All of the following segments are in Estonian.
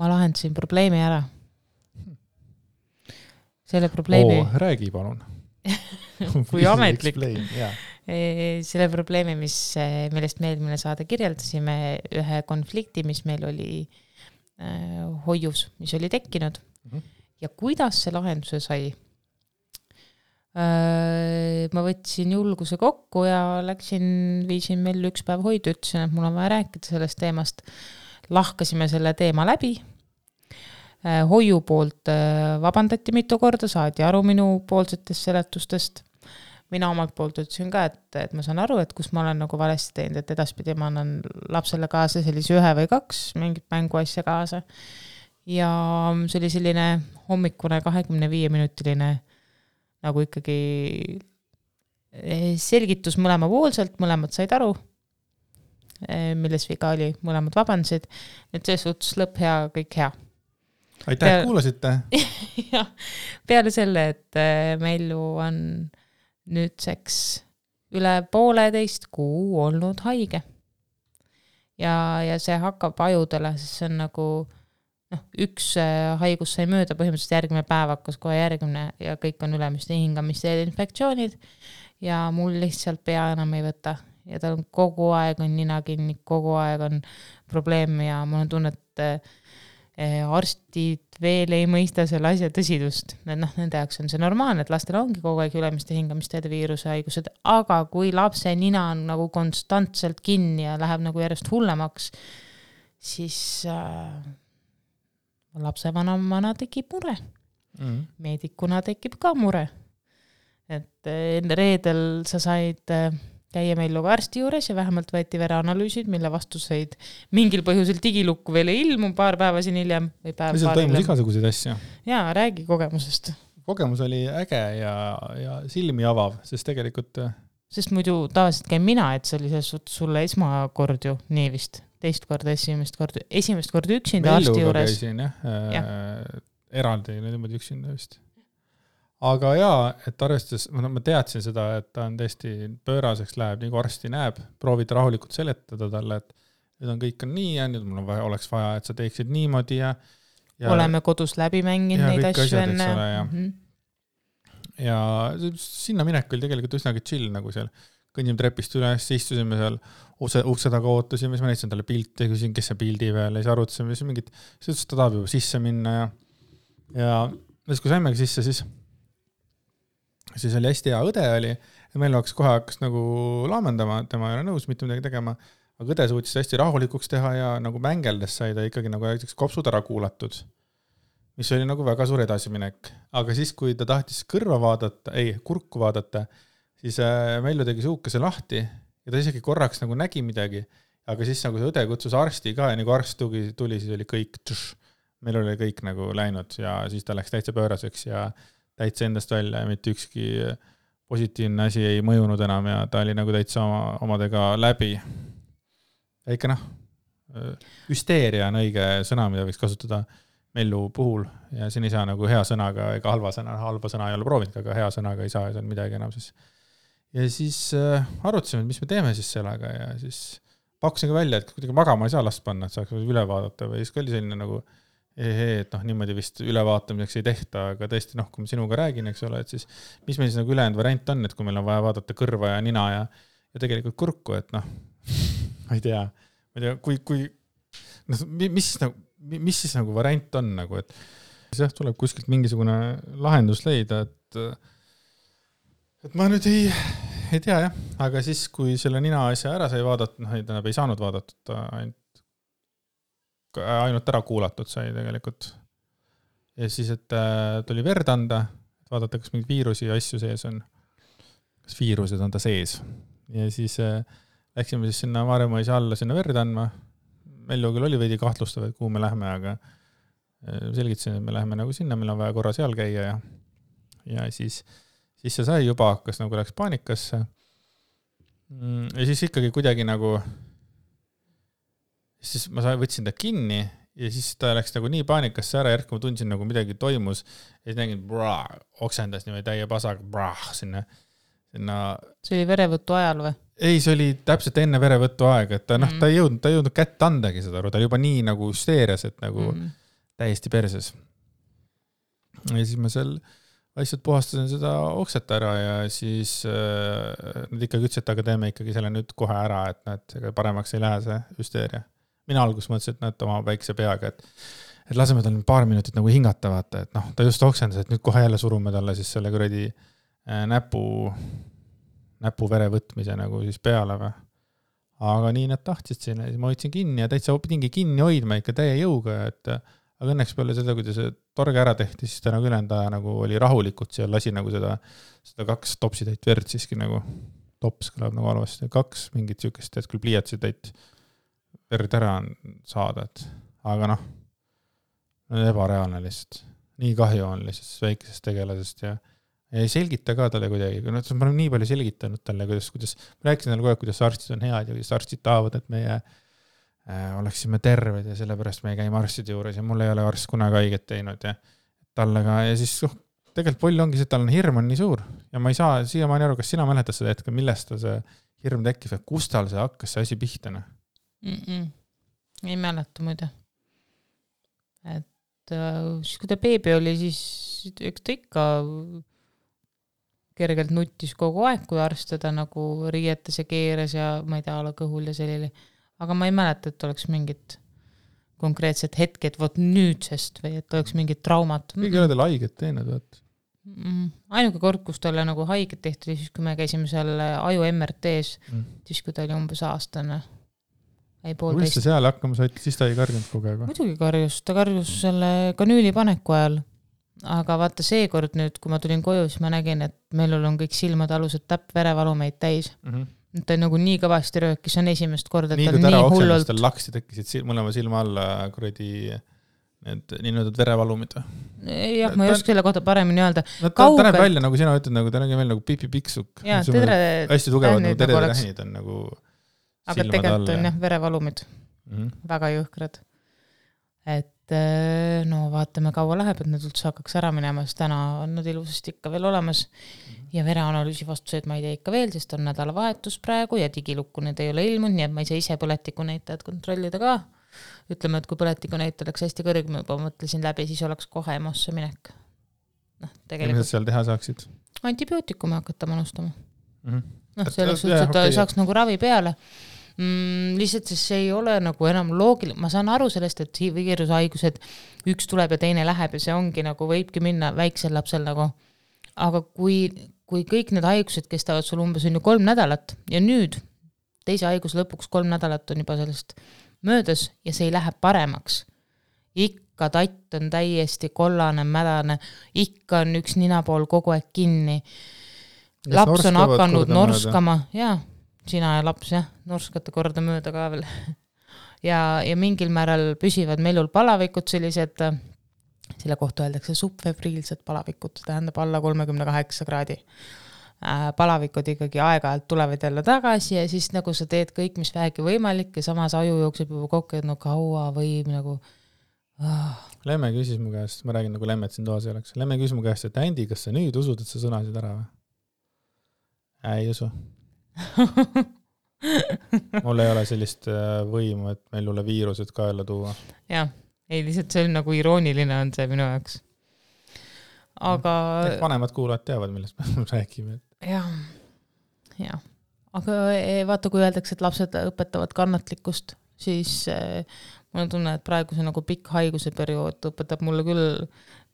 ma lahendasin probleemi ära. Selle probleemi... räägi palun. Kui ametlik. Selle probleemi, millest me eelmine saade kirjeldasime, ühe konflikti, mis meil oli hoius, mis oli tekkinud. Ja kuidas see lahenduse sai? Ma võtsin julguse kokku ja viisin meil üks päev hoidu, ütlesin, et mul on vaja rääkida sellest teemast. Lahkasime selle teema läbi. Hoiu poolt vabandati mitu korda, saadi aru minu poolsetest seletustest. Mina omalt poolt ütlesin ka, et ma saan aru, et kus ma olen nagu valesti teinud, et edaspidi ma annan lapsele kaasa sellise 1 või 2 mingit mänguasja kaasa. Ja see oli selline hommikune 25-minutiline nagu ikkagi selgitus mõlemapoolselt, mõlemad said aru, milles viga oli, mõlemad vabandasid. Nüüd see suhtes lõpp hea, kõik hea. Aitäh, et kuulasite. Ja, peale selle, et Mellu on nüüdseks üle 1,5 kuu olnud haige. Ja see hakkab ajudele, sest see on nagu üks haigus sai mööda, põhimõtteliselt järgmine päev hakkas kohe järgmine ja kõik on ülemiste hingamisteede infektsioonid ja mul lihtsalt pea enam ei võta. Ja tal on kogu aeg on nina kinni, kogu aeg on probleem ja mul on tunne, et arstid veel ei mõista selle asja tõsidust. Nende jaoks on see normaalne, et lastel ongi kogu aeg ülemiste hingamisteede viiruse haigused, aga kui lapse nina on nagu konstantselt kinni ja läheb nagu järjest hullemaks, siis lapsevanemana tekib mure. Meedikuna tekib ka mure. Et reedel sa said käia meil arsti juures ja vähemalt võeti vereanalüüsid, mille vastuseid mingil põhjusel digilukku veel ei ilmu paar päeva siin hiljem. Või päev paar toimus igasuguseid asja. Jaa, räägi kogemusest. Kogemus oli äge ja silmi avav, sest tegelikult... Sest muidu tavaliselt käin mina, et see oli sulle esmakord ju nii vist. Teist korda, esimest korda üksinda arsti juures. Käisin, eraldi niimoodi üksinda vist. Aga jaa, et arvestades, ma teadsin seda, et ta on tõesti pööraseks läheb, nii kui arsti näeb, proovida rahulikult seletada talle, et nüüd on kõik on nii ja nüüd mul oleks vaja, et sa teeksid niimoodi ja oleme kodus läbi mänginud neid asju enne. Ja sinna minek oli tegelikult üsnagi chill, nagu seal kõnnim trepist üles, istusime seal ukse taga ootasime, siis ma näitasin talle pilte, küsin, kes see pildi veel, ja siis arutasime, siis mingit, siis ta tahab juba sisse minna ja kui saimegi sisse, siis oli hästi hea õde oli, ja meil kohe hakkas nagu laamendama, tema ei ole nõus mitte midagi tegema, aga õde suutis hästi rahulikuks teha ja nagu mängeldes sai ta ikkagi nagu kopsud ära kuulatud, mis oli nagu väga suur edasiminek. Aga siis, kui ta tahtis kurku vaadata, siis Mellu tegi suukese lahti ja ta isegi korraks nagu nägi midagi, aga siis nagu see õde kutsus arsti ka ja nagu arst tuli, siis oli kõik, meil oli kõik nagu läinud ja siis ta läks täitsa pööraseks ja täitsa endast välja ja mitte ükski positiivne asi ei mõjunud enam ja ta oli nagu täitsa omadega läbi. Ja ikka hüsteeria on õige sõna, mida võiks kasutada Mellu puhul ja siin ei saa nagu hea sõnaga ega halba sõna ei ole proovinud, aga hea sõnaga ei saa midagi enam siis. Ja siis arutasime, mis me teeme siis sellega ja siis pakkusin ka välja, et kuidagi magama ei saa last panna, et saaks üle vaadata või siis oli selline nagu et niimoodi vist ülevaatamiseks ei tehta, aga tõesti, kui ma sinuga räägin, eks ole, et siis mis meil siis nagu ülejäänud variant on, et kui meil on vaja vaadata kõrva ja nina ja tegelikult kurku, et ma ei tea, mis siis nagu variant on, nagu, et siis tuleb kuskilt mingisugune lahendus leida, et ma nüüd ei tea jah, aga siis kui selle nina asja ära sai vaadatud, ei saanud vaadatud ainult ära kuulatud sai tegelikult. Ja siis, et tuli verd anda, et vaadata, kas mingid viirusi ja asju sees on. Kas viirused on ta sees. Ja siis läksime siis sinna Maarjamaa alla sinna verd andma. Mellu küll oli veidi kahtlustav, et kuhu me lähme, aga selgitasin, et me läheme nagu sinna, meil on vaja korra seal käia ja siis see sai juba hakkas nagu läks paanikasse. Ja siis ikkagi kuidagi nagu siis ma võtsin ta kinni ja siis ta läks nagu nii paanikasse ära, järk ma tundsin nagu midagi toimus ja siis nägin, oksendas niimoodi täie pasaga, sinna. See oli verevõttu ajal või? Ei, see oli täpselt enne verevõttu aega, et ta ei jõudnud kätt andagi seda, ta oli juba nii nagu hüsteerias, et nagu täiesti perses. Ja siis ma seal lihtsalt puhastasin seda okset ära ja siis nad ikkagi ütlesid, et aga teeme ikkagi selle nüüd kohe ära, et näed, paremaks ei lähe see hüsteeria. Mina alguses mõtlesin, et näed oma väikse peaga, et laseme tal paar minutit nagu hingata, vaata, et noh, ta just oksendas, et nüüd kohe jälle surume talle siis selle kuradi näpu vere võtmise nagu siis peale või. Aga nii nad tahtsid sinna, siis ma hoidsin kinni ja täitsa pidingi kinni hoidma ikka täie jõuga, aga õnneks peale seda, kui see torge ära tehti, siis ta nagu ülenda nagu oli rahulikult seal, lasi nagu seda 2 topsitäit verd siiski nagu, tops kõlab nagu halvasti, 2 mingit sükest, et küll pliiatsitäit verd ära saada, et aga noh, ebareaalne lihtsalt. Nii kahju on lihtsalt väikesest tegelasest ja ei selgita ka talle kuidagi, ma olen nii palju selgitanud talle, kuidas ma rääkisin talle kogu aeg, kuidas arstid on head ja kuidas arstid tahavad, et meie oleksime terved ja sellepärast me ei käi arstide juures ja mul ei ole arst kunagi haiget teinud ja talle ka ja siis tegelikult pull ongi see, et tal on hirm on nii suur ja ma ei saa siiamaani aru, kas sina mäletad seda hetke, millest ta see hirm tekkis või kus tal see hakkas see asi pihtana? Ei mäleta muide. Et siis kui ta beebi oli, siis üks ta ikka kergelt nuttis kogu aeg, kui arst teda nagu riietas ja keeras ja ma ei tea, ala kõhul ja sellili. Aga ma ei mäleta, et oleks mingit konkreetset hetke, et võt nüüdsest või et oleks mingit traumat. Kõige ole teil haiget teinud, võt? Ainuke kord, kus talle nagu haiget tehti, siis kui me käisime seal aju MRT-s, siis kui ta oli umbes aastane. Kuidas ta seal hakkama said, siis ta ei karjunud kogu aeg? Muidugi karjus, ta karjus selle kanüüli paneku ajal. Aga vaata seekord nüüd, kui ma tulin koju, siis ma nägin, et meil on kõik silmad alused täpp verevalumeid täis. Ta nagu nii kõvasti röökis, on esimest korda, et ta nii hullult. Tal laksid tekkisid mõlema silma alla kuradi need nii-öelda verevalumid. Jah, ma ei oska selle kohta paremini öelda. Ta näeb välja, nagu sina ütled, ta näeb välja nagu Pipi Piksuk. Hästi tugevad nagu teretähnid on nagu aga tegelikult on jah verevalumid. Väga jõhkrad. Et no vaatame kaua läheb, et need üldse hakkaks ära minema, sest täna on nad ilusasti ikka veel olemas ja vereanalüüsi vastuseid ma ei tea ikka veel, sest on nädalavahetus praegu ja digilukku need ei ole ilmunud, nii et ma ei saa ise põletikunäitajad kontrollida ka. Ütleme, et kui põletikunäitaja oleks hästi kõrg, ma juba mõtlesin läbi, siis oleks kohe EMO-sse minek. Mis seal teha saaksid? Antibiootikume hakata manustama. Selleks üldse, et ta saaks nagu ravi peale. Lihtsalt see ei ole nagu enam loogiline, ma saan aru sellest, et viirushaigused üks tuleb ja teine läheb ja see ongi nagu võibki minna väiksel lapsel nagu, aga kui kõik need haigused kestavad sul umbes on ju 3 nädalat ja nüüd teise haigus lõpuks 3 nädalat on juba sellest möödas ja see ei lähe paremaks, ikka tatt on täiesti kollane, mädane, ikka on üks ninapool kogu aeg kinni, laps on hakanud norskama, jaa, sina ja laps, jah, norskate korda mööda ka veel. ja mingil määral püsivad melul palavikud sellised, selle kohta öeldakse subfebriilsed palavikud, tähendab alla 38 kraadi. Palavikud ikkagi aeg-ajalt tulevad jälle tagasi ja siis nagu sa teed kõik, mis vähegi võimalik ja samas aju jookseb juba kokku, et no kaua võib nagu... Lemme küsis mu käest, ma räägin nagu Lemmet siin toas ei oleks. Lemme küsis mu käest, et Andi, kas sa nüüd usud, et sa sõnasid ära või? Ei usu. Mul ei ole sellist võimu, et meil üle viirused kaela tuua. Jah, ei lihtsalt see on nagu irooniline on see minu jaoks. Aga... vanemad kuulajad teavad, millest me räägime. Jah. Aga vaata, kui öeldakse, et lapsed õpetavad kannatlikkust, siis mul on tunne, et praegu see nagu pikk haiguse periood õpetab mulle küll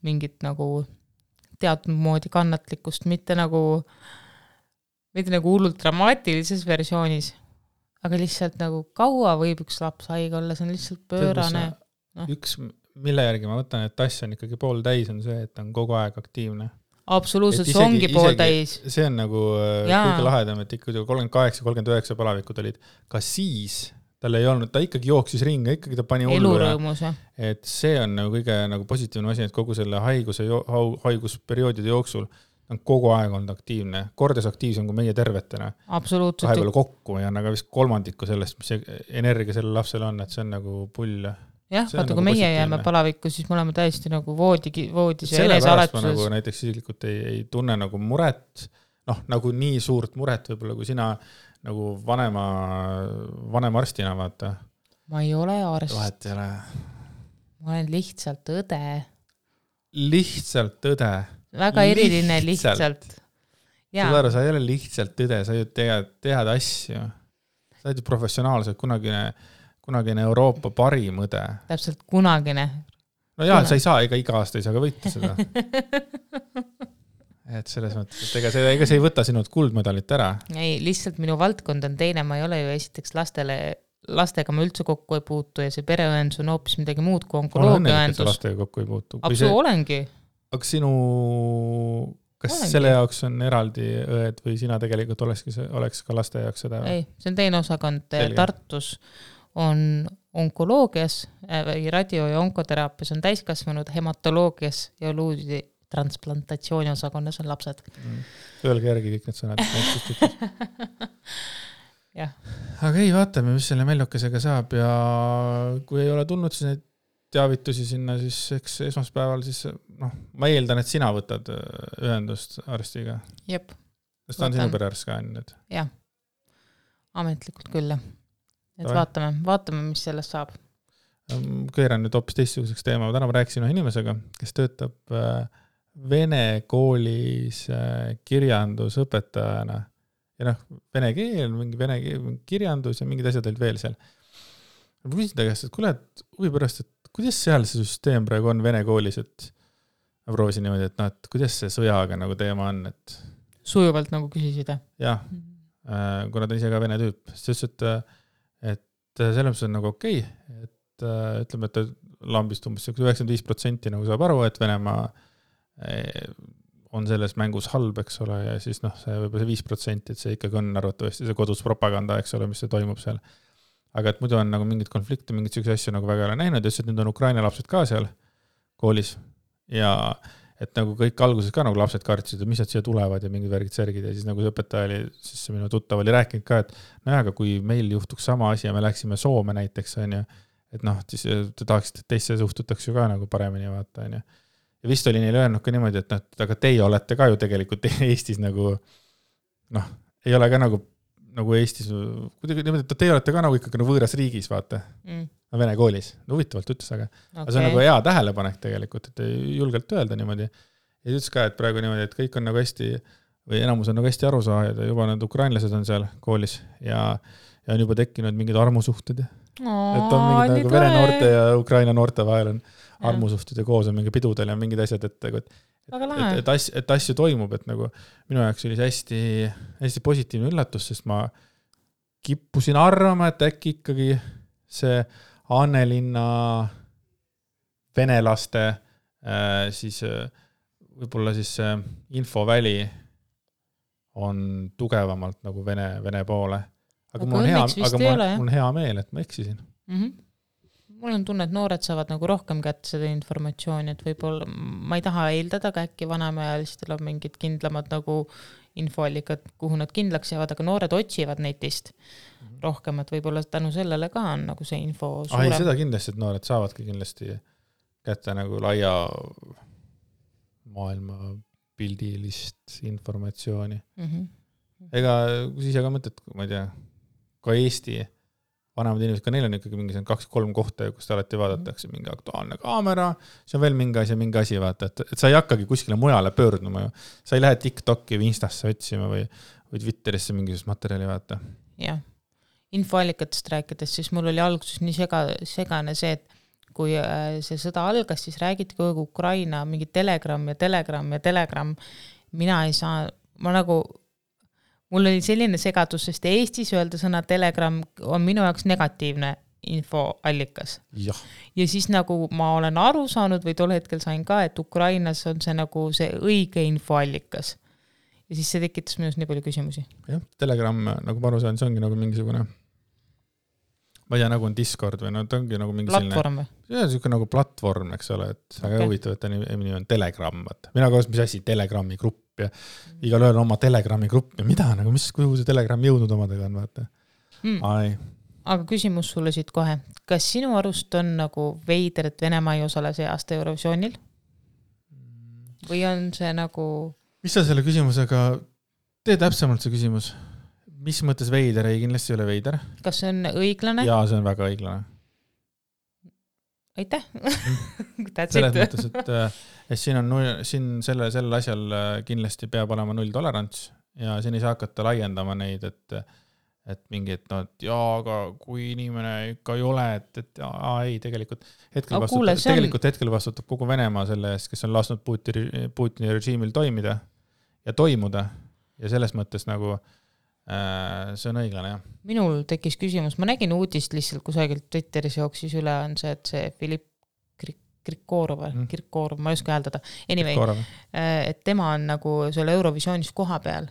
mingit nagu teatud moodi kannatlikkust, mitte nagu hullult dramaatilises versioonis, aga lihtsalt nagu kaua võib üks laps haige olla, see on lihtsalt pöörane. Üks, mille järgi ma võtan, et tass on ikkagi pool täis, on see, et on kogu aeg aktiivne. Absoluutselt, see ongi pool täis. See on nagu kõige lahedam, et ikka 38-39 palavikud olid. Ka siis tal ei olnud, ta ikkagi jooksis ringa, ikkagi ta pani elurõõmus. Et see on nagu kõige nagu positiivne asi, et kogu selle haigusperioodide jooksul on kogu aeg olnud aktiivne. Kordes aktiivsem kui meie tervetena. Absoluutselt. Vahepeal kokku ja on aga vist kolmandiku sellest, mis energia sellel lapsel on, et see on nagu pull. Jah, vaata, kui meie jääme palavikku, siis me oleme täiesti nagu voodis ja enesealetuses. Nagu näiteks siselikult ei tunne nagu muret, nagu nii suurt muret võib-olla, kui sina nagu vanema arstina vaata. Ma ei ole arst. Vahet ei ole. ma olen lihtsalt õde. Lihtsalt õde. Väga eriline lihtsalt. Saad aru, sa ei ole lihtsalt õde, sa ju tead asju. Sa oled ju professionaalselt kunagine Euroopa parim õde. Täpselt kunagine. No jaa, sa ei saa, iga aasta ei saa ka võita seda. Et selles mõttes, et ega see ei võta sinult kuldmedalit ära. Ei, lihtsalt minu valdkond on teine, ma ei ole ju esiteks lastega ma üldse kokku ei puutu ja see pereõendus on hoopis midagi muud kui onkoloogiaõendus. Lastega kokku ei puutu. Olengi. Aga kas selle jaoks on eraldi õed või sina tegelikult oleks ka laste jaoks seda? Ei, see on teine osakond. Tartus on onkoloogias või radio- ja onkoteraapias on täiskasvanud, hematoloogias ja luudi transplantatsiooni osakonnas on lapsed. Öelge järgi kõik need sõnad. Jah. Aga ei, vaatame, mis selle Mellukesega saab ja kui ei ole tulnud, siis neid teavitusi sinna, siis eks esmaspäeval siis, ma eeldan, et sina võtad ühendust arstiga. Jep. Sest ta on sinu perearst ka nüüd. Jah, ametlikult küll. Et vaatame, mis sellest saab. Keeran nüüd hoopis teistsuguseks teema. Täna ma rääkisin inimesega, kes töötab vene koolis kirjandusõpetajana. Ja vene keel, mingi kirjandus ja mingid asjad olid veel seal. Ma küsin ta käest, et kuule, huvi pärast, et kuidas seal see süsteem praegu on vene koolis, et ma proovisin niimoodi, et kuidas see sõjaga nagu teema on, et sujuvalt nagu küsisid. Jah, kuna ta ise ka vene tüüp, siis et selles mõttes on nagu okei, et ütleme, et ta lambist umbes 95% nagu saab aru, et Venemaa on selles mängus halb, eks ole, ja siis see võib-olla see 5%, et see ikkagi on arvatavasti see kodus propaganda, eks ole, mis see toimub seal. Aga et muidu on nagu mingid konflikte, mingid sellised asju nagu väga ei ole näinud, ja nüüd on Ukraina lapsed ka seal koolis ja et nagu kõik alguses ka nagu lapsed kartsid, et mis nad siia tulevad ja mingid värgid särgid ja siis nagu see õpetaja oli, siis see minu tuttav oli rääkinud ka, et aga kui meil juhtuks sama asi ja me läksime Soome näiteks, on ju, et siis te tahaksite, et teisse suhtutaks ju ka nagu paremini vaata, on ju. Ja vist oli neile öelnud ka niimoodi, et aga teie olete ka ju tegelikult Eestis nagu ei ole ka nagu Eestis, kuidagi niimoodi, et teie olete ka nagu ikkagi võõras riigis, vaata. Vene koolis. Huvitavalt ütles, aga see on nagu hea tähelepanek tegelikult, et julgelt öelda niimoodi. Ja ütles ka, et praegu niimoodi, et kõik on nagu hästi, või enamus on nagu hästi aru saajad ja juba need ukrainlased on seal koolis ja on juba tekkinud mingid armusuhted. Et on mingid nagu vene noorte ja Ukraina noorte vahel on armusuhted ja koos on mingi pidudel ja mingid asjad, et asju toimub, et nagu minu jaoks oli hästi, hästi positiivne üllatus, sest ma kippusin arvama, et äkki ikkagi see Annelinna venelaste siis võib-olla siis infoväli on tugevamalt nagu vene poole. Aga mul on hea meel, et ma eksisin. Mul on tunne, et noored saavad nagu rohkem kätte seda informatsiooni, et võib-olla ma ei taha eeldada, aga äkki vanemaealistel on mingid kindlamad nagu infoallikad, kuhu nad kindlaks jäävad, aga noored otsivad netist rohkem, et võib-olla tänu sellele ka on nagu see info suurem. Seda kindlasti, et noored saavadki kindlasti kätte nagu laia maailma pildilist informatsiooni. Ega kui ise ka mõtled, ma ei tea, ka Eesti vanemad inimesed, ka neil on ikkagi mingi 2-3 kohta, kus te alati vaadatakse mingi aktuaalne kaamera, see on veel mingi asi, vaata, et sa ei hakkagi kuskile mujale pöörduma ju. Sa ei lähe TikToki või Instasse otsima või Twitterisse mingisugust materjali, vaata. Jah, infoallikatest rääkides, siis mul oli alguses nii segane see, et kui see sõda algas, siis räägiti kogu Ukraina mingi Telegram. Mina ei saa, mul oli selline segadus, sest Eestis öelda sõna Telegram on minu jaoks negatiivne infoallikas. Ja siis nagu ma olen aru saanud või tol hetkel sain ka, et Ukrainas on see nagu see õige infoallikas. Ja siis see tekitas minust nii palju küsimusi. Jah, Telegram, nagu ma aru saan, see ongi nagu mingisugune, ma ei tea, nagu on Discord või ta ongi nagu mingi platvorm või? See on selline nagu platvorm, eks ole, et väga huvitav, et ta nimi on Telegram. Mina koos, mis asi, Telegrami grupp ja igal ühel oma Telegrami grupp ja mida, nagu kuhu see Telegram jõudnud omadega on, vaata. Aga küsimus sulle siit kohe. Kas sinu arust on nagu veider, et Venemaa ei osale see aasta Eurovisioonil? Või on see nagu... Mis sa selle küsimusega... Tee täpsemalt see küsimus. Mis mõttes veider? Ei, kindlasti ei ole veider. Kas see on õiglane? Jaa, see on väga õiglane. aitäh. selles mõttes, et siin sellel asjal kindlasti peab olema nulltolerants ja siin ei saa hakata laiendama neid, et mingid, aga kui inimene ikka ei ole, et ei, tegelikult hetkel vastutab kogu Venemaa selle eest, kes on lasknud Putini režiimil toimida ja toimuda ja selles mõttes nagu see on õiglane, jah. Minul tekkis küsimus, ma nägin uudist lihtsalt kusagilt Twitteris jooksis üle, on see, et see Filipp Kirkorov, ma ei oska hääldada. Anyway, et tema on nagu selle Eurovisioonis koha peal.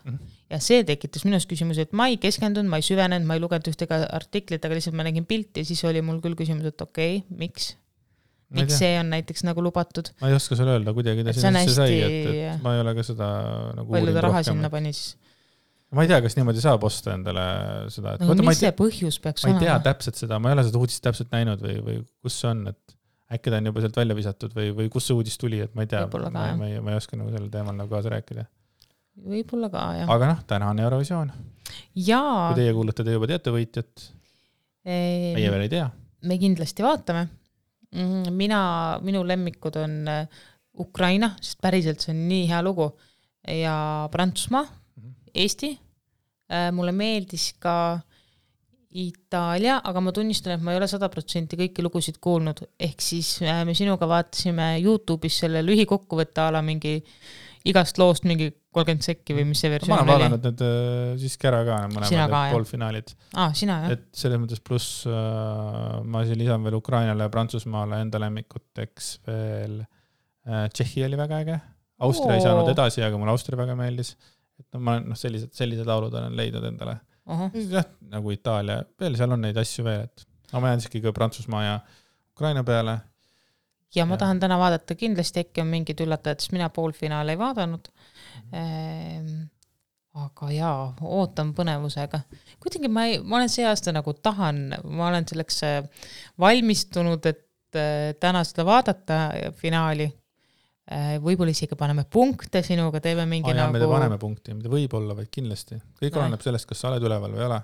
Ja see tekitas minus küsimus, et ma ei keskendunud, ma ei süvenenud, ma ei lugenud ühtega artiklit, aga lihtsalt ma nägin pilti ja siis oli mul küll küsimus, et okei, miks see on näiteks nagu lubatud? Ma ei oska sulle öelda kuidagi, ta sinna sisse sai, et ma ei ole ka seda nagu palju ta raha sinna pani siis? Ma ei tea, kas niimoodi saab osta endale seda. No, mis see põhjus peaks olema? Ma ei tea täpselt seda, ma ei ole seda uudist täpselt näinud või kus see on, et äkki ta on juba sealt välja visatud või kus see uudis tuli, et ma ei tea, ma ei oska nagu sellel teemal nagu kaasa rääkida. Võib-olla ka, jah. Aga täna on Eurovisioon. Jaa. Kui teie kuulate, te juba teate võitjat. Meie veel ei tea. Me kindlasti vaatame. Minu lemmikud on Ukraina, sest päriselt see on nii hea lugu, ja Prantsusmaa, Eesti. Mulle meeldis ka Itaalia, aga ma tunnistan, et ma ei ole 100% kõiki lugusid kuulnud. Ehk siis me sinuga vaatasime YouTube'is selle lühikokkuvõtte ala mingi igast loost mingi 30 sekki või mis see versioon oli. Ma olen vaadanud need siiski ära ka, mõlemad poolfinaalid. Sina, jah. Et selles mõttes pluss ma siin lisan veel Ukrainale ja Prantsusmaale enda lemmikuteks veel Tšehhi oli väga äge. Austria ei saanud edasi, aga mulle Austria väga meeldis. Et ma sellised laulud olen leidnud endale. Jah, nagu Itaalia, veel seal on neid asju veel, et ma jään siiski ka Prantsusmaa ja Ukraina peale. Ja ma tahan täna vaadata, kindlasti äkki on mingid üllatajad, sest mina poolfinaale ei vaadanud. Aga jaa, ootan põnevusega. Kuidagi ma olen see aasta nagu ma olen selleks valmistunud, et täna seda vaadata finaali. Võib-olla isegi paneme punkte sinuga, teeme mingi nagu... Me paneme punkti, mida võib olla, vaid kindlasti. Kõik oleneb sellest, kas sa oled üleval või ei ole.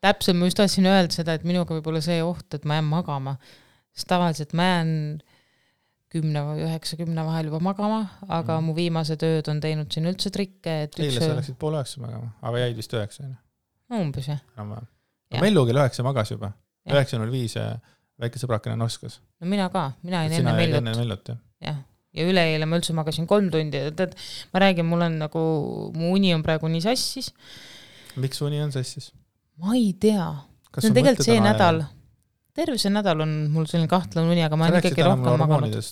Täpselt, ma just tahtsin öelda seda, et minuga võib olla see oht, et ma jään magama. Sest tavaliselt ma jään 10 vahel juba magama, aga mu viimased ööd on teinud siin üldse trikke. Eile sa läksid 8:30 magama, aga jäid vist 9. Umbes, jah. Mellu kell 9 magas juba. 9:05 väike sõbrakene noskas. No mina ka, mina ei enne Mellut. Jah. Ja üleeile ma üldse magasin 3 tundi. Ma räägin, mul on nagu, mu uni on praegu nii sassis. Miks uni on sassis? Ma ei tea. See on tegelikult see nädal. Terve see nädal on mul selline kahtlane uni, aga ma olen ikkagi rohkem maganud.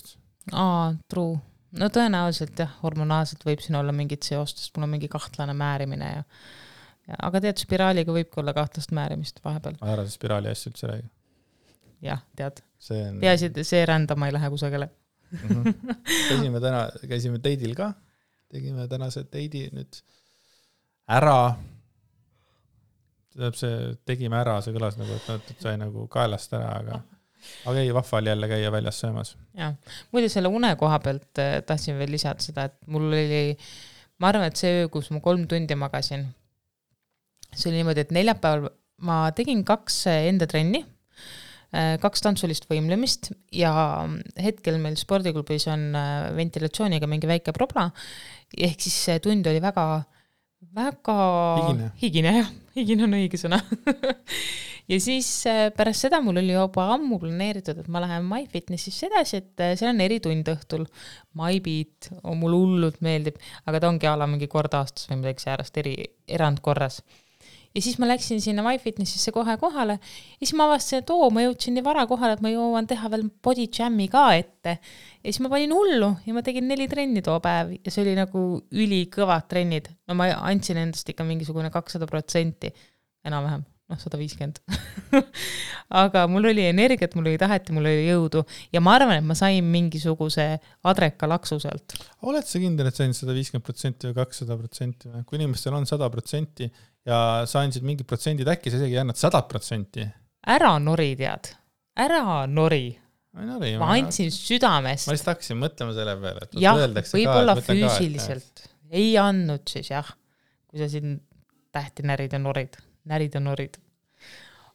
True. No tõenäoliselt jah, hormonaalselt võib siin olla mingid seostest, mul on mingi kahtlane määrimine. Aga tead, spiraaliga võibki olla kahtlast määrimist vahepeal. Ma arvan, spiraali asja üldse räägi. Jah, tead. Peaasi, et see rändama ei lähe kusagile. Käisime teidil ka, tegime tänase teidi nüüd ära, tegime ära, see kõlas nagu, et sai nagu kaelast ära, aga ei, vahval jälle käia väljas söömas. Ja, muide selle une koha pealt tahtsin veel lisada seda, et mul oli, ma arvan, et see öö, kus ma 3 tundi magasin, see oli niimoodi, et neljapäeval ma tegin 2 enda trenni, 2 tantsulist võimlemist ja hetkel meil spordiklubis on ventilatsiooniga mingi väike probla, ehk siis see tund oli väga higine, jah, higine on õige sõna. Ja siis pärast seda mul oli juba ammu planeeritud, et ma lähen MyFitnessis edasi, et seal on eritund õhtul. MyBeat on mul hullult meeldib, aga ta ongi ala mingi kord aastas või midagi säärast erandkorras. Ja siis ma läksin sinna MyFitnessisse kohe kohale ja siis ma avastasin, et ma jõudsin nii vara kohale, et ma jõuan teha veel body jam'i ka ette. Ja siis ma panin hullu ja ma tegin 4 trenni too päev ja see oli nagu ülikõvad trennid. No ma andsin endast ikka mingisugune 200%, enam-vähem, 150. Aga mul oli energiat, mul oli tahet ja mul oli jõudu ja ma arvan, et ma sain mingisuguse adreka laksu sealt. Oled sa kindel, et sain 150% või 200%? Kui inimestel on 100% ja sa andsid mingid protsendid, äkki sa isegi annad 100%? Ära nori, tead. Ära nori. Ma andsin südamest. Ma lihtsalt hakkasin mõtlema selle peale. Jah, võib-olla füüsiliselt. Ei andnud siis, jah. Kui sa siin tähti närid ja norid.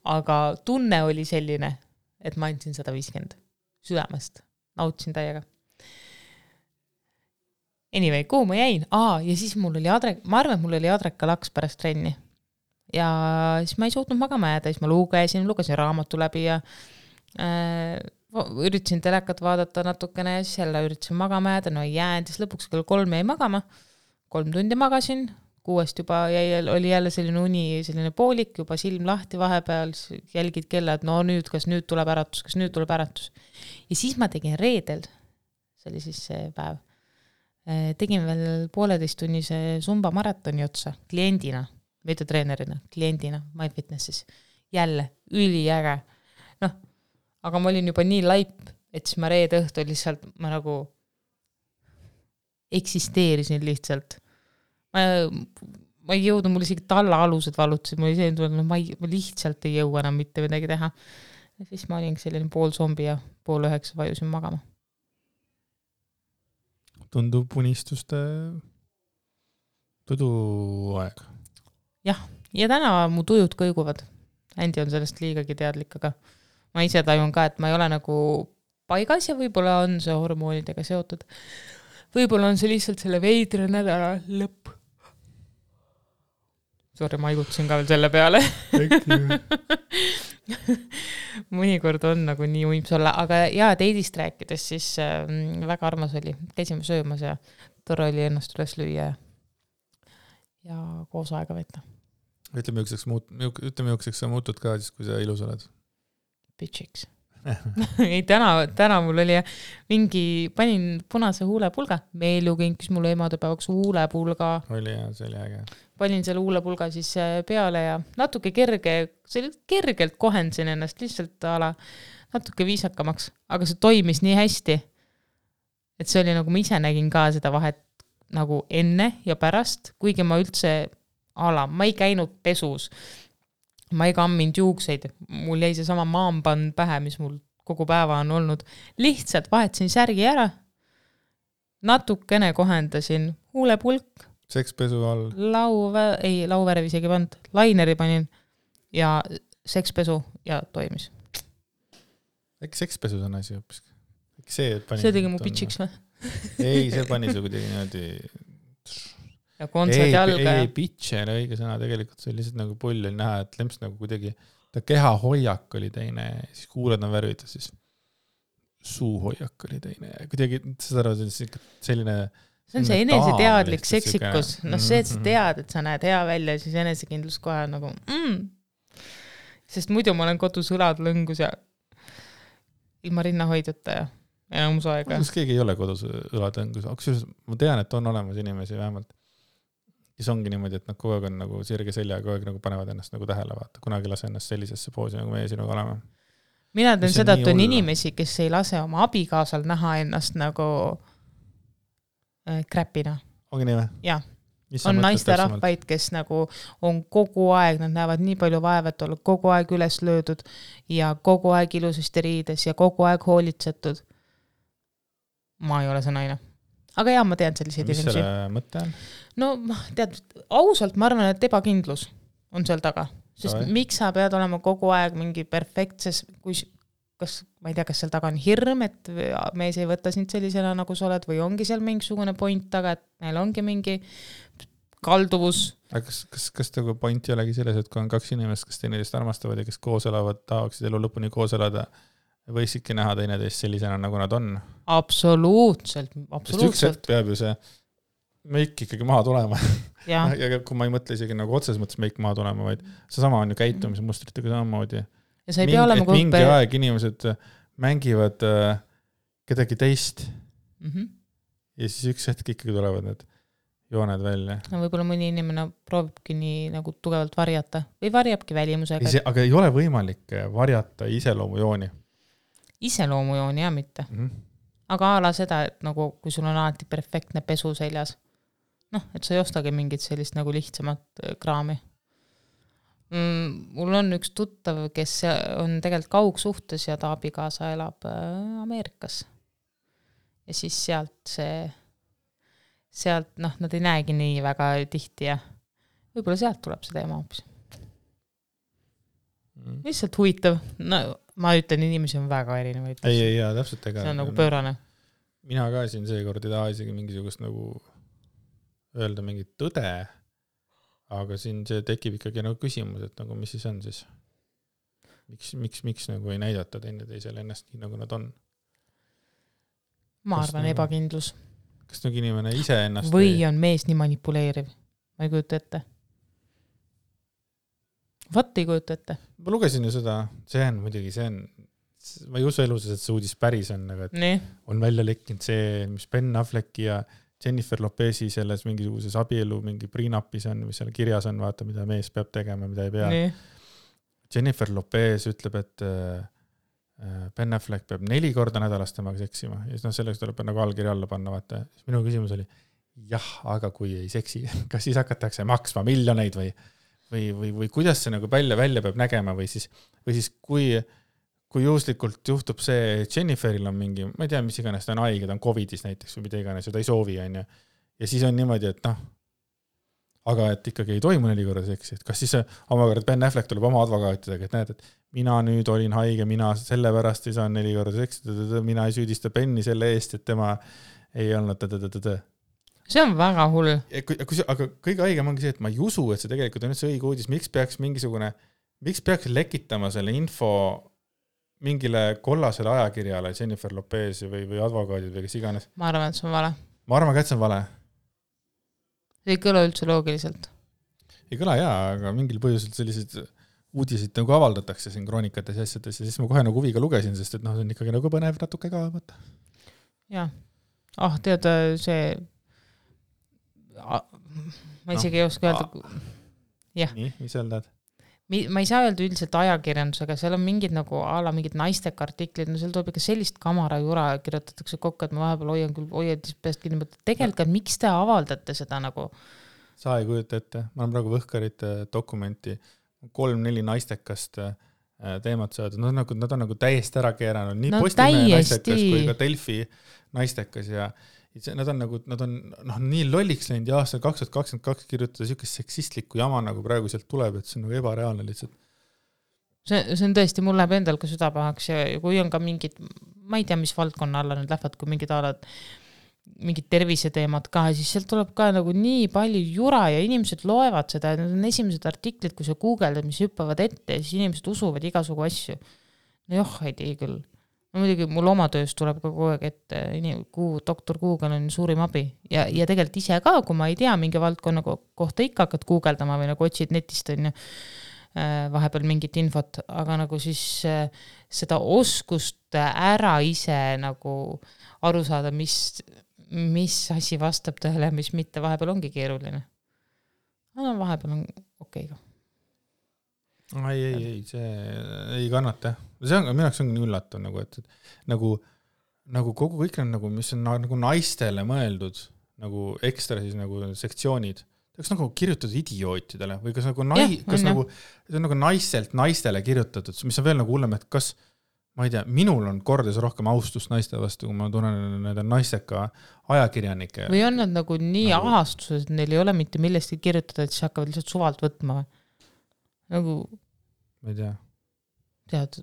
Aga tunne oli selline, et ma andsin 150. südamest. Nautsin täiega. Anyway, kuhu ma jäin? Ja siis ma arvan, et mul oli adreka laks pärast trenni. Ja siis ma ei suutnud magama jääda, siis ma lugesin raamattu läbi ja üritasin telekat vaadata natukene ja siis jälle üritasin magama jääda, no ei jäänud, siis lõpuks kell 3 jäi magama, 3 tundi magasin, 6 juba oli jälle selline uni, selline poolik, juba silm lahti vahepeal, jälgid kella, et no nüüd, kas nüüd tuleb äratus. Ja siis ma tegin reedel, see oli siis see päev, tegin veel 1,5-tunnise Zumba maratoni otsa kliendina, mitte treenerina, kliendina, MyFitnessis. Jälle, üliäge. Noh, aga ma olin juba nii laip, et siis ma reede õhtul lihtsalt, ma nagu eksisteerisin lihtsalt. Ma ei jõudnud, mul isegi talla alused valutasid, mul isegi tulnud, ma lihtsalt ei jõua enam mitte midagi teha. Ja siis ma olin selline pool zombi ja 8:30 vajusin magama. Tundub unistuste tuduaeg. Jah, ja täna mu tujud kõiguvad. Andy on sellest liigagi teadlik, aga ma ise tajun ka, et ma ei ole nagu paigas ja võib-olla on see hormoonidega seotud. Võib-olla on see lihtsalt selle veidre nädala lõpp. Sorry, ma haigutasin ka veel selle peale. Mõnikord on nagu nii uims olla, aga teidist rääkides siis väga armas oli. Käisime söömas ja tore oli ennast üles lüüa ja koos aega võtta. Ütleme, jõukseks sa muutud ka siis, kui sa ilus oled? Bitchiks. Ei, täna mul oli panin punase huulepulga. Meelu kinkis mulle emadepäevaks huulepulga. Oli ja, see oli äge. Panin selle huulepulga siis peale ja natuke kergelt kohendasin ennast lihtsalt natuke viisakamaks. Aga see toimis nii hästi, et see oli nagu ma ise nägin ka seda vahet nagu enne ja pärast, kuigi ma üldse ma ei käinud pesus. Ma ei kamminud juukseid, mul jäi see sama maamband pähe, mis mul kogu päeva on olnud. Lihtsalt vahetasin särgi ära, natukene kohendasin huulepulk. Sekspesu all? Lauvärv isegi pand, laineri panin ja sekspesu ja toimis. Äkki sekspesu on asi hoopis? See tegi mu bitchiks või? Ei, see pani su kuidagi niimoodi... Ja kontsert jalga. Ei, bitch ei ole õige sõna, tegelikult see oli lihtsalt nagu pull oli näha, et lemps nagu kuidagi, ta keha hoiak oli teine, siis kuuled on värvitud, siis suu hoiak oli teine, kuidagi, seda selline... See on see eneseteadlik seksikus, see, et sa tead, et sa näed hea välja, siis enesekindlus kohe nagu sest muidu ma olen kodus õlad lõngus ja ilma rinnahoidjata ja enamus aega. Kas keegi ei ole kodus õlad lõngus? Ma tean, et on olemas inimesi vähemalt. Siis ongi niimoodi, et nad kogu aeg on nagu sirge selja, kogu aeg nagu panevad ennast nagu tähele vaata. Kunagi lase ennast sellisesse poosi, nagu meie sinuga oleme. Mina teen seda, et on inimesi, kes ei lase oma abikaasal näha ennast nagu kräpina. Ongi nii või? Jah. On naiste rahvaid, kes nagu on kogu aeg, nad näevad nii palju vaevat olla, kogu aeg üles löödud ja kogu aeg ilusasti riides ja kogu aeg hoolitsetud. Ma ei ole see naine. Aga ma tean selliseid inimesi. Mis selle mõte on? No tead, ausalt ma arvan, et ebakindlus on seal taga. Sest miks sa pead olema kogu aeg mingi perfektses, ma ei tea, kas seal taga on hirm, et mees ei võta sind sellisena, nagu sa oled, või ongi seal mingisugune point taga, et neil ongi mingi kalduvus. Aga kas nagu point ei olegi selles, et kui on 2 inimest, kes teineteist armastavad ja kes koos elavad, tahaksid elu lõpuni koos elada, võisidki näha teineteist sellisena, nagu nad on? Absoluutselt. Sest üks hetk peab ju see meik ikkagi maha tulema. Ja kui ma ei mõtle isegi nagu otses mõttes meik maha tulema, vaid see sama on ju käitumismustritega samamoodi. Ja sa ei pea olema mingi aeg inimesed mängivad kedagi teist ja siis üks hetk ikkagi tulevad need jooned välja. No võib-olla mõni inimene proovibki nii nagu tugevalt varjata või varjabki välimusega. Aga ei ole võimalik varjata iseloomujooni. Iseloomujooni ja mitte. Aga ala seda, et nagu kui sul on alati perfektne pesu seljas, et sa ei ostagi mingit sellist nagu lihtsamat kraami. Mul on üks tuttav, kes on tegelikult kaugsuhtes ja ta abikaasa elab Ameerikas. Ja siis sealt nad ei näegi nii väga tihti ja võib-olla sealt tuleb see teema hoopis. Lihtsalt huvitav. No, ma ütlen, inimesi on väga erinevaid. Ei, täpselt ega. See on nagu pöörane. Mina ka siin seekord ei taha isegi mingisugust nagu öelda mingit tõde, aga siin see tekib ikkagi nagu küsimus, et nagu mis siis on siis? Miks nagu ei näidata teisele ennast nii, nagu nad on? Ma arvan nagu, ebakindlus. Kas nagu inimene ise ennast või on mees nii manipuleeriv? Ma ei kujuta ette. Vaat ei kujuta ette. Ma lugesin ju seda, see on, ma ei usu elus, et see uudis päris on, aga on välja lekkinud see, mis Ben Afflecki ja Jennifer Lopezi selles mingisuguses abielu mingi prenuppis on, mis seal kirjas on, vaata, mida mees peab tegema, mida ei pea. Jennifer Lopez ütleb, et Ben Affleck peab 4 korda nädalas temaga seksima ja selleks tuleb nagu allkiri alla panna, vaata. Minu küsimus oli, aga kui ei seksi, kas siis hakatakse maksma miljoneid või kuidas see nagu välja peab nägema või siis kui juhuslikult juhtub see, Jenniferil on mingi, ma ei tea, mis iganes, ta on haige, ta on COVIDis näiteks või mida iganes ja ta ei soovi, on ju. Ja siis on niimoodi, et aga et ikkagi ei toimu 4 korda seksi, et kas siis omakorda Ben Affleck tuleb oma advokaatidega, et näed, et mina nüüd olin haige, mina sellepärast ei saa 4 korda seksi, mina ei süüdista Benni selle eest, et tema ei olnud See on väga hull. Aga kõige haigem ongi see, et ma ei usu, et see tegelikult on üldse õige uudis, miks peaks lekitama selle info mingile kollasele ajakirjale Jennifer Lopez või advokaadid või kes iganes. Ma arvan, et see on vale. Ma arvan, et see on vale. See ei kõla üldse loogiliselt. Ei kõla aga mingil põhjusel sellised uudisid nagu avaldatakse siin kroonikates ja asjades ja siis ma kohe nagu huviga lugesin, sest et see on ikkagi nagu põnev natuke ka, vaata. Jah. Tead, see ma isegi ei oska öelda. Jah. Nii, mis seal tead? Ma ei saa öelda üldiselt ajakirjandusega, seal on mingid nagu mingid naisteka artiklid, seal tuleb ikka sellist kamara jura kirjutatakse kokku, et ma vahepeal hoian peast kinni, tegelikult miks te avaldate seda nagu? Sa ei kujuta ette, ma olen praegu Võhkarite dokumenti 3-4 naistekast teemat saada, nad on nagu täiesti ära keeranud, nii Postimehe naistekas kui ka Delfi naistekas ja nad on nii lolliks läinud ja aastal 2022 kirjutada siukest seksistlikku jama nagu praegu sealt tuleb, et see on nagu ebareaalne lihtsalt. See on tõesti, mul läheb endal ka südapahaks ja kui on ka mingid, ma ei tea, mis valdkonna alla nüüd lähevad, kui mingid terviseteemad ka, siis sealt tuleb ka nagu nii palju jura ja inimesed loevad seda, need on esimesed artiklid, kui sa googeldad, mis hüppavad ette ja siis inimesed usuvad igasugu asju. Ei tea küll. Muidugi mul oma töös tuleb ka kogu aeg, et doktor Google on suurim abi ja tegelikult ise ka, kui ma ei tea mingi valdkonna kohta ikka hakkad googeldama või nagu otsid netist on ju vahepeal mingit infot, aga nagu siis seda oskust ära ise nagu aru saada, mis asi vastab tõele, mis mitte, vahepeal ongi keeruline. Vahepeal on okei ka. Ei, see ei kannata. See on, minu jaoks on nii üllatav, et nagu kogu kõik on nagu, mis on nagu naistele mõeldud, nagu ekstra siis nagu sektsioonid. Kas nagu kirjutatud idiootidele või kas nagu see on nagu naiselt naistele kirjutatud, mis on veel nagu hullem, et kas, ma ei tea, minul on kordades rohkem austust naiste vastu, kui ma tunnen nende naisteka ajakirjanike. Või on nad nagu nii ahastused, et neil ei ole mitte millestki kirjutada, et siis hakkavad lihtsalt suvalt võtma või? Nagu ma ei tea. Tead,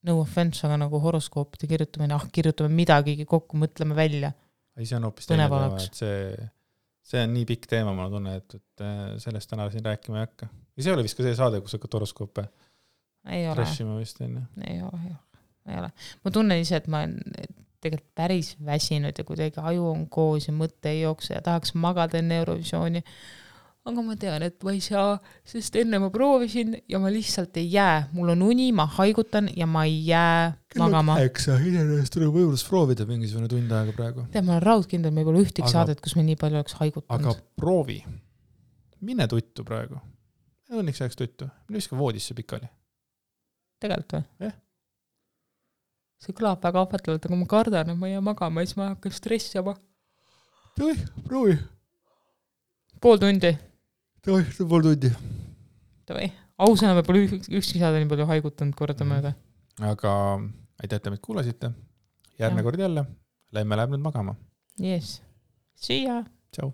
no offense, aga nagu horoskoopide kirjutamine, kirjutame midagi kokku, mõtleme välja. Ei, see on hoopis teine teema, et see on nii pikk teema, ma tunnen, et sellest täna siin rääkima ei hakka. Ja see oli vist ka see saade, kus hakkad horoskoope trashima vist enne. Ei ole. Ma tunnen ise, et ma olen tegelikult päris väsinud ja kuidagi aju on koos ja mõtte ei jookse ja tahaks magada enne Eurovisiooni. Aga ma tean, et ma ei saa, sest enne ma proovisin ja ma lihtsalt ei jää. Mul on uni, ma haigutan ja ma ei jää magama. Iseenesest tuleb võimalus proovida mingisugune tund aega praegu. Tead, ma olen raudkindel, me ei pole ühtegi saadet, kus me nii palju oleks haigutanud. Aga proovi. Mine tuttu praegu. Õnneks jääks tuttu. Mine viska voodisse pikali. Tegelikult või? See kõlab väga ahvatlevalt, aga ma kardan, et ma ei jää magama ja siis ma hakkan stressama. Proovi. Pool tundi. Pool tundi. Ausõna, me pole ükski saada nii palju haigutanud kordamööda. Aga aitäh, et meid kuulasite. Järgmine kord jälle. Lähme läheb nüüd magama. Yes. See ya. Ciao.